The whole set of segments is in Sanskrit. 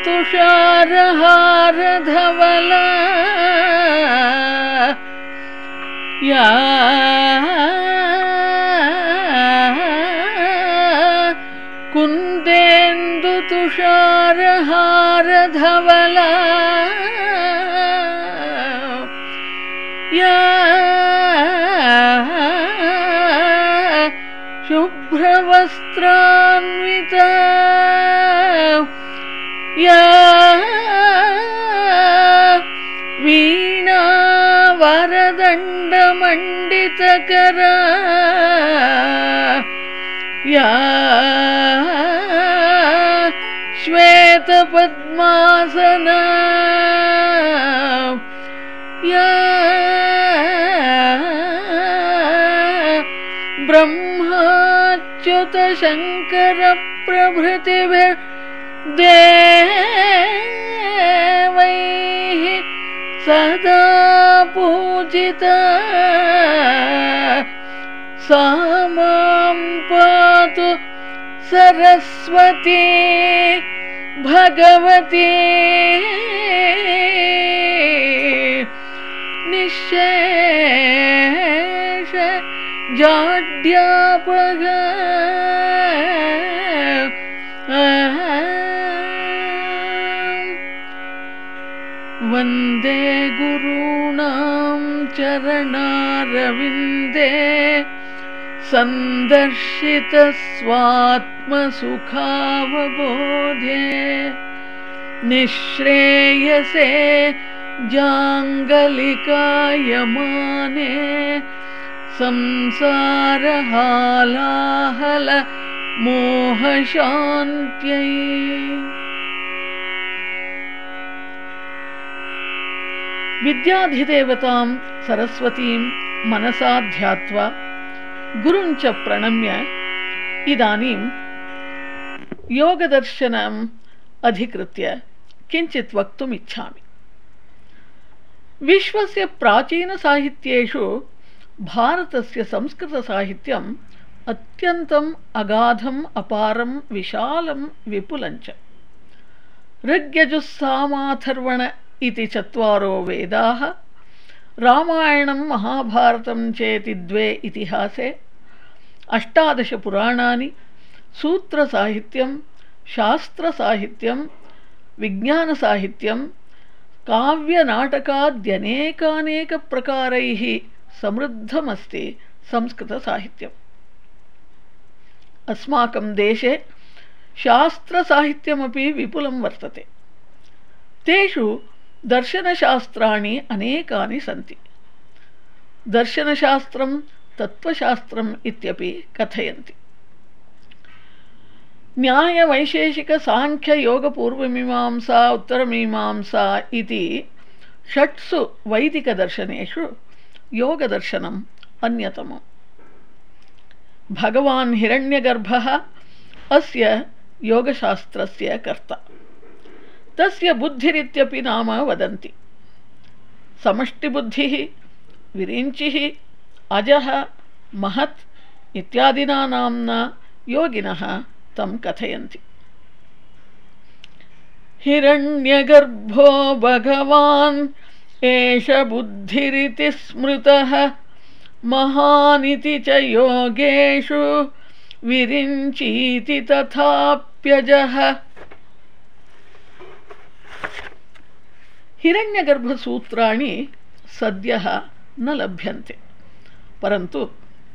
तुषारहारधवला या कुन्देन्दु तुषारहारधवला या शुभ्रवस्त्रान्विता या वीणा वरदण्डमण्डितकरा या श्वेतपद्मासना या ब्रह्माच्युतशङ्करप्रभृतिभिर्देवैः सदा पूजिता सा मां पातु सरस्वती भगवती निःशेष जाड्यापगा वन्दे गुरूणां चरणारविन्दे सन्दर्शितस्वात्मसुखावबोधे निःश्रेयसे जाङ्गलिकायमाने संसारहालाहल मोहशान्त्यै। विद्याधिदेवतां सरस्वतीं मनसा ध्यात्वा गुरुञ्च प्रणम्य इदानीं योगदर्शनम् अधिकृत्य किञ्चित् वक्तुम् इच्छामि। विश्वस्य प्राचीनसाहित्येषु भारतस्य संस्कृतसाहित्यम् अत्यन्तम् अगाधम् अपारं विशालं विपुलञ्च। ऋग्यजुस्सामाथर्वण इति 4 वेदाः, रामायणं महाभारतं चेति 2 इतिहासे, 18 पुराणानि, सूत्रसाहित्यं, शास्त्रसाहित्यं, विज्ञानसाहित्यं, काव्यनाटकाद्यनेकानेकप्रकारैः समृद्धमस्ति संस्कृतसाहित्यम्। अस्माकं देशे शास्त्रसाहित्यमपि विपुलं वर्तते। तेषु दर्शनशास्त्राणि अनेकानि सन्ति। दर्शनशास्त्रं तत्त्वशास्त्रम् इत्यपि कथयन्ति। न्यायवैशेषिकसाङ्ख्ययोगपूर्वमीमांसा उत्तरमीमांसा इति 6 वैदिकदर्शनेषु योगदर्शनम् अन्यतमम्। भगवान् हिरण्यगर्भः अस्य योगशास्त्रस्य कर्ता। तस्य बुद्धिरित्यपि नाम वदन्ति। समष्टिबुद्धिः, विरिञ्चिः, अजः, महत् इत्यादिना नाम्ना योगिनः तं कथयन्ति। हिरण्यगर्भो भगवान् एष बुद्धिरिति स्मृतः महानिति च योगेषु विरिञ्चीति तथाप्यजः। हिरण्यगर्भसूत्राणि सद्यः न लभ्यन्ते, परन्तु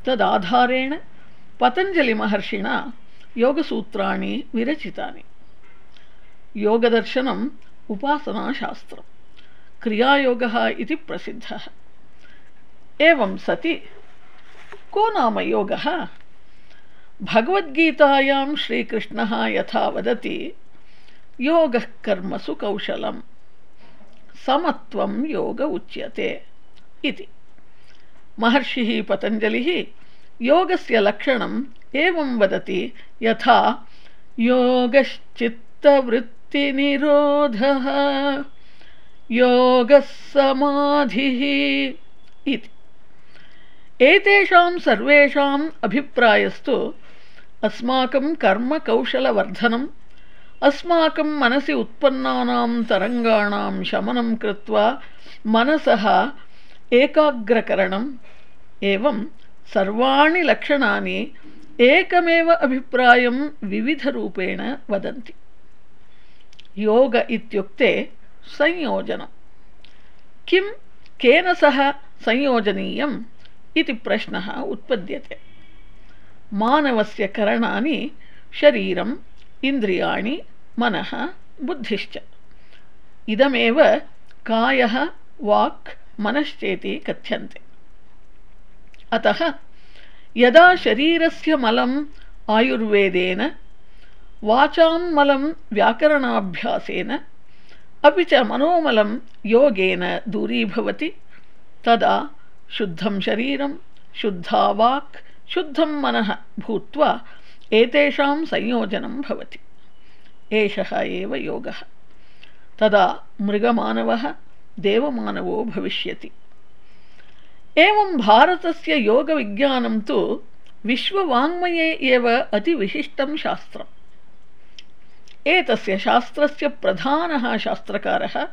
तदाधारेण पतञ्जलिमहर्षिणा योगसूत्राणि विरचितानि। योगदर्शनम् उपासनाशास्त्रं, क्रियायोगः इति प्रसिद्धः। एवं सति को नाम योगः? भगवद्गीतायां श्रीकृष्णः यथा वदति, योगः कर्मसु कौशलम् समत्वं योग उच्यते इति। महर्षिः पतञ्जलिः योगस्य लक्षणम् एवं वदति, यथा योगश्चित्तवृत्तिनिरोधः योगः समाधिः इति। एतेषां सर्वेषाम् अभिप्रायस्तु अस्माकं कर्मकौशलवर्धनं, अस्माकं मनसि उत्पन्नानां तरङ्गाणां शमनं कृत्वा मनसः एकाग्रकरणम् एवं सर्वाणि लक्षणानि एकमेव अभिप्रायं विविधरूपेण वदन्ति। योग इत्युक्ते संयोजनं। किं केन सह संयोजनीयम् इति प्रश्नः उत्पद्यते। मानवस्य करणानि शरीरम्, इन्द्रियाणि, मनः, बुद्धिश्च। इदमेव कायः, वाक्, मनश्चेति कथ्यन्ते। अतः यदा शरीरस्य मलम् आयुर्वेदेन, वाचां मलं व्याकरणाभ्यासेन, अपि च मनोमलं योगेन दूरीभवति, तदा शुद्धं शरीरं, शुद्धा वाक्, शुद्धं मनः भूत्वा एतेषां संयोजनं भवति। एषः एव योगः। तदा मृगमानवः देवमानवो भविष्यति। एवं भारतस्य योगविज्ञानं तु विश्ववाङ्मये एव अतिविशिष्टं शास्त्रम्। एतस्य शास्त्रस्य प्रधानः शास्त्रकारः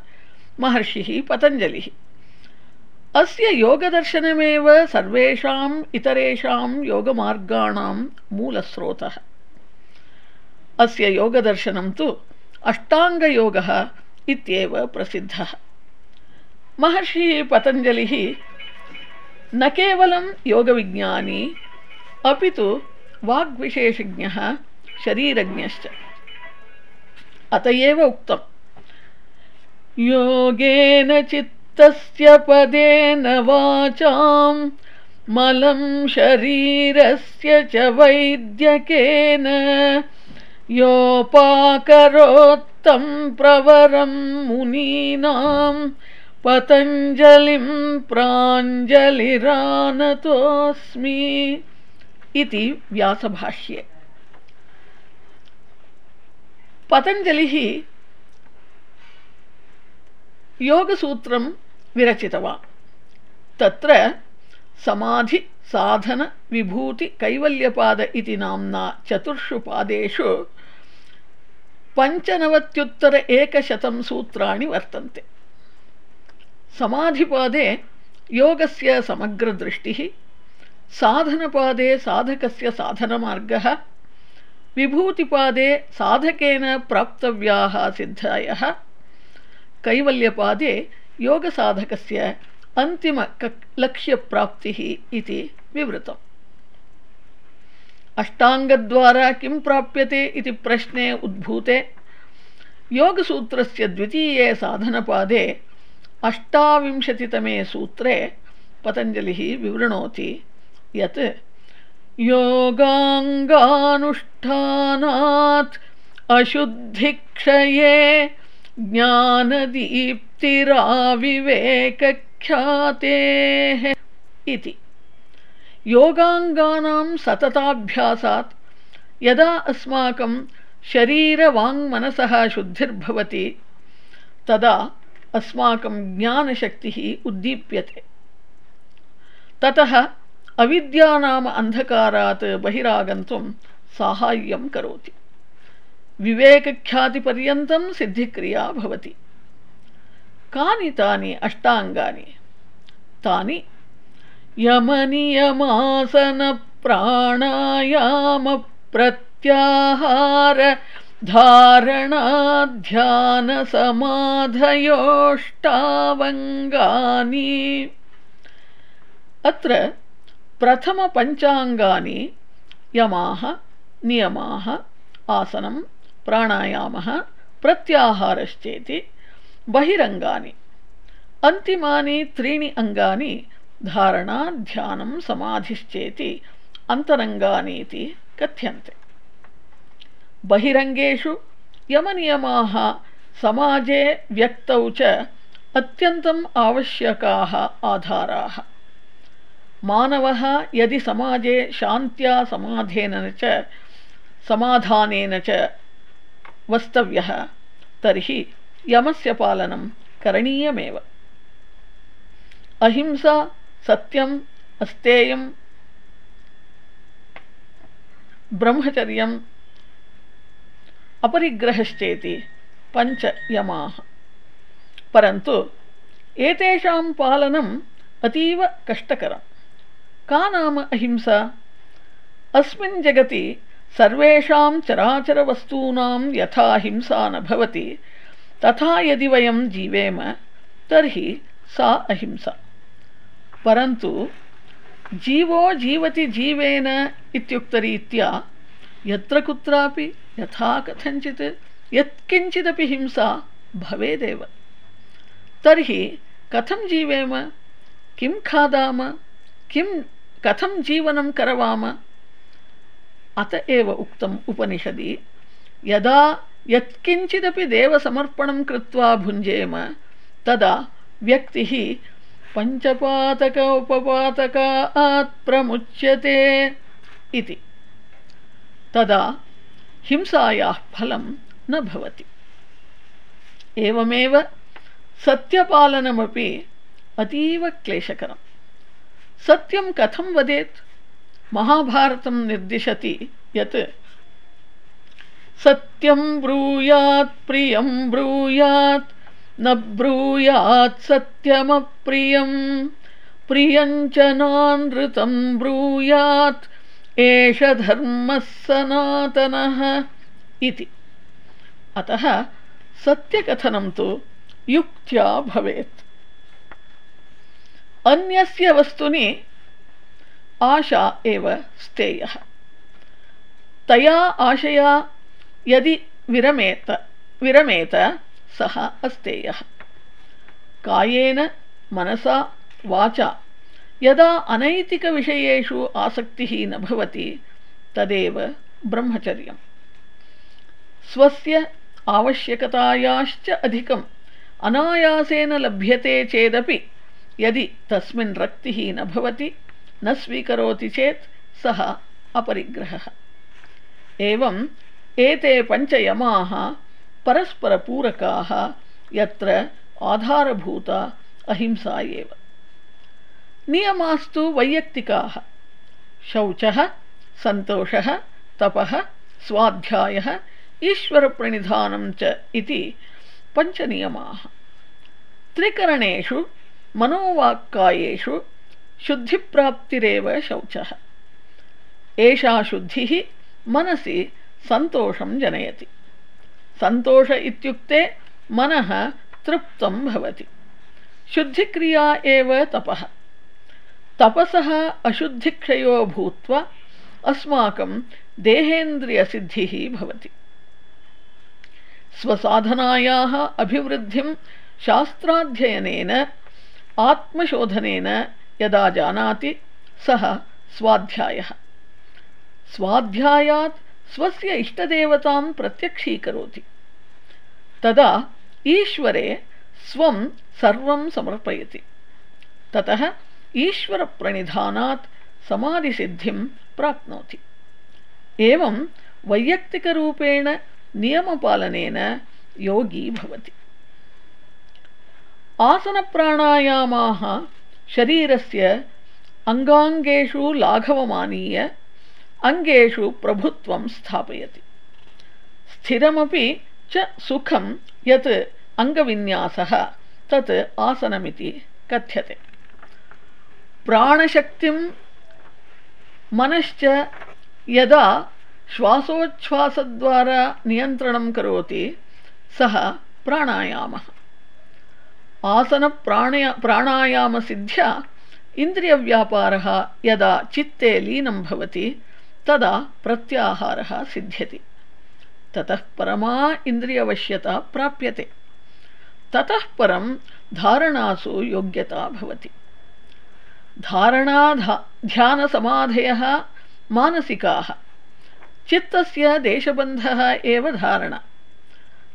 महर्षिः पतञ्जलिः। अस्य योगदर्शनमेव सर्वेषाम् इतरेषां योगमार्गाणां मूलस्रोतः। अस्य योगदर्शनं तु अष्टाङ्गयोगः इत्येव प्रसिद्धः। महर्षिः पतञ्जलिः न केवलं योगविज्ञानी अपि तु वाग्विशेषज्ञः, शरीरज्ञश्च। अत एव उक्तम्, योगेन चित्तस्य पदेन वाचां मलं शरीरस्य च वैद्यकेन योपाकरोत्तं प्रवरं मुनीनां पतञ्जलिं प्राञ्जलिरानतोऽस्मि इति व्यासभाष्ये। पतञ्जलिः योगसूत्रं विरचितवान्। तत्र समाधि, साधन, विभूति, कैवल्यपाद इति नाम्ना चतुर्षु पादेषु 95,100 सूत्राणि वर्तन्ते। समाधिपादे योगस्य समग्रदृष्टिः, साधनपादे साधकस्य साधनमार्गः, विभूतिपादे साधकेन प्राप्तव्याः सिद्धायः, कैवल्यपादे योगसाधकस्य अन्तिमलक्ष्यप्राप्तिः इति विवृतम्। अष्टाङ्गद्वारा किं प्राप्यते इति प्रश्ने उद्भूते योगसूत्रस्य द्वितीये साधनपादे 28तमे सूत्रे पतञ्जलिः विवृणोति यत् योगाङ्गानुष्ठानात् अशुद्धिक्षये ज्ञानदीप्तिराविवेकख्यातेः इति। योगाङ्गानां सतताभ्यासात् यदा अस्माकं शरीरवाङ्मनसः शुद्धिर्भवति तदा अस्माकं ज्ञानशक्तिः उद्दीप्यते। ततः अविद्यानाम अन्धकारात् बहिरागन्तुं साहाय्यं करोति। विवेकख्यातिपर्यन्तं सिद्धिक्रिया भवति। कानि तानि अष्टाङ्गानि? तानि यमनियमासनप्राणायामप्रत्याहार धारणाध्यानसमाधयोष्टावङ्गानि। अत्र प्रथमपञ्चाङ्गानि यमाः, नियमाः, आसनं, प्राणायामः, प्रत्याहारश्चेति बहिरङ्गानि। अन्तिमानि 3 अङ्गानि धारणा, ध्यानं, समाधिश्चेति अन्तरङ्गानीति कथ्यन्ते। बहिरङ्गेषु यमनियमाः समाजे व्यक्तौ च अत्यन्तम् आवश्यकाः आधाराः। मानवः यदि समाजे शान्त्या समाधानेन च वस्तव्यः तर्हि यमस्य पालनं करणीयमेव। अहिंसा, सत्यम्, अस्तेयं, ब्रह्मचर्यं, अपरिग्रहश्चेति पञ्च यमाः। परन्तु एतेषां पालनम् अतीव कष्टकरं। का नाम अहिंसा? अस्मिन् जगति सर्वेषां चराचरवस्तूनां यथा हिंसा न भवति तथा यदि वयं जीवेम तर्हि सा अहिंसा। परन्तु जीवो जीवति जीवेन इत्युक्तरीत्या यत्र कुत्रापि यथा कथञ्चित् यत्किञ्चिदपि हिंसा भवेदेव। तर्हि कथं जीवेम? किं खादाम? कथं जीवनं करवाम? अत एव उक्तम् उपनिषदि, यदा यत्किञ्चिदपि देवसमर्पणं कृत्वा भुञ्जेम तदा व्यक्तिः पञ्चपातक उपपातकात् प्रमुच्यते इति। तदा हिंसायाः फलं न भवति। एवमेव सत्यपालनमपि अतीव क्लेशकरं। सत्यं कथं वदेत्? महाभारतं निर्दिशति यत् सत्यं ब्रूयात् प्रियं ब्रूयात् न ब्रूयात् सत्यमप्रियं प्रियञ्च नानृतं ब्रूयात् एष धर्मः सनातनः इति। अतः सत्यकथनं तु युक्त्या भवेत्। अन्यस्य वस्तुनि आशा एव स्तेयः। तया आशया यदि विरमेत सः अस्तेयः। कायेन मनसा वाचा यदा अनैतिकविषयेषु आसक्तिः न भवति तदेव ब्रह्मचर्यम्। स्वस्य आवश्यकतायाश्च अधिकम् अनायासेन लभ्यते चेदपि यदि तस्मिन् रक्तिः न भवति, न स्वीकरोति चेत् सः अपरिग्रहः। एवम् एते पञ्चयमाः परस्परपूरकाः, यत्र आधारभूता अहिंसा एव। नियमास्तु वैयक्तिकाः। शौचः, सन्तोषः, तपः, स्वाध्यायः, ईश्वरप्रणिधानं च इति पञ्चनियमाः। त्रिकरणेषु मनोवाक्कायेषु शुद्धिप्राप्तिरेव शौचः। एषा शुद्धिः मनसि सन्तोषं जनयति। सन्तोष इत्युक्ते मनः तृप्तं भवति। शुद्धिक्रिया एव तपः। तपसः अशुद्धिक्षयो भूत्वा अस्माकं देहेन्द्रियसिद्धिः भवति। स्वसाधनायाः अभिवृद्धिं शास्त्राध्ययनेन आत्मशोधनेन यदा जानाति सः स्वाध्यायः। स्वाध्यायात् स्वस्य इष्टदेवतां प्रत्यक्षीकरोति। तदा ईश्वरे स्वं सर्वं समर्पयति। ततः ईश्वरप्रणिधानात् समाधिसिद्धिं प्राप्नोति। एवं वैयक्तिकरूपेण नियमपालनेन योगी भवति। आसनप्राणायामाः शरीरस्य अङ्गाङ्गेषु लाघवमानीय अङ्गेषु प्रभुत्वं स्थापयति। स्थिरमपि च सुखं यत् अङ्गविन्यासः तत् आसनमिति कथ्यते। प्राणशक्तिं मनश्च यदा श्वासोच्छ्वासद्वारा नियन्त्रणं करोति सः प्राणायामः। प्राणायामसिद्ध्या इन्द्रियव्यापारः यदा चित्ते लीनं भवति तदा प्रत्याहारः सिद्ध्यति। ततः परमा इन्द्रियवश्यता प्राप्यते। ततः परं धारणासु योग्यता भवति। धारणा ध्यानसमाधयः मानसिकाः। चित्तस्य देशबन्धः एव धारणा।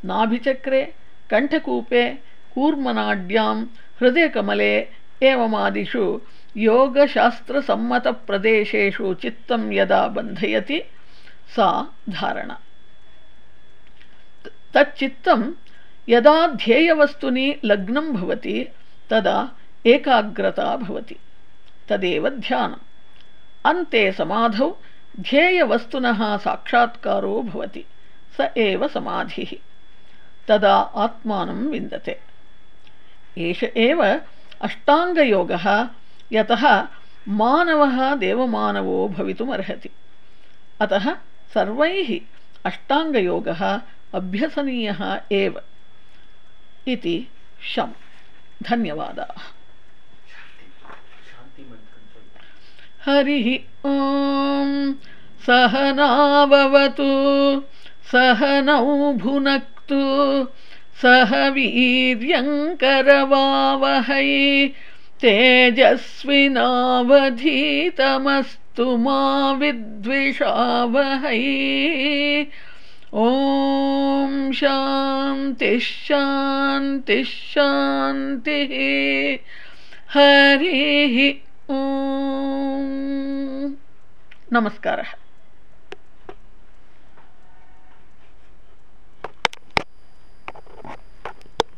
नाभिचक्रे, कण्ठकूपे, कूर्मनाड्यां, हृदयकमले एवमादिषु योगशास्त्रसम्मतप्रदेशेषु चित्तं यदा बन्धयति सा धारणा। तच्चित्तं यदा ध्येयवस्तुनि लग्नं भवति तदा एकाग्रता भवति। तदेव ध्यानम्। अन्ते समाधौ ध्येयवस्तुनः साक्षात्कारो भवति। स एव समाधिः। तदा आत्मानं विन्दते। एष एव अष्टाङ्गयोगः, यतः मानवः देवमानवो भवितुमर्हति। अतः सर्वैः अष्टाङ्गयोगः अभ्यसनीयः एव इति शम्। धन्यवादाः। हरिः ॐ। सहनाववतु सहनौ भुनक्तु सह वीर्यङ्करवावहै तेजस्विनावधीतमस्तु मा विद्विषावहै। ॐ शान्तिः शान्तिः शान्तिः। हरिः ॐ। नमस्कारः।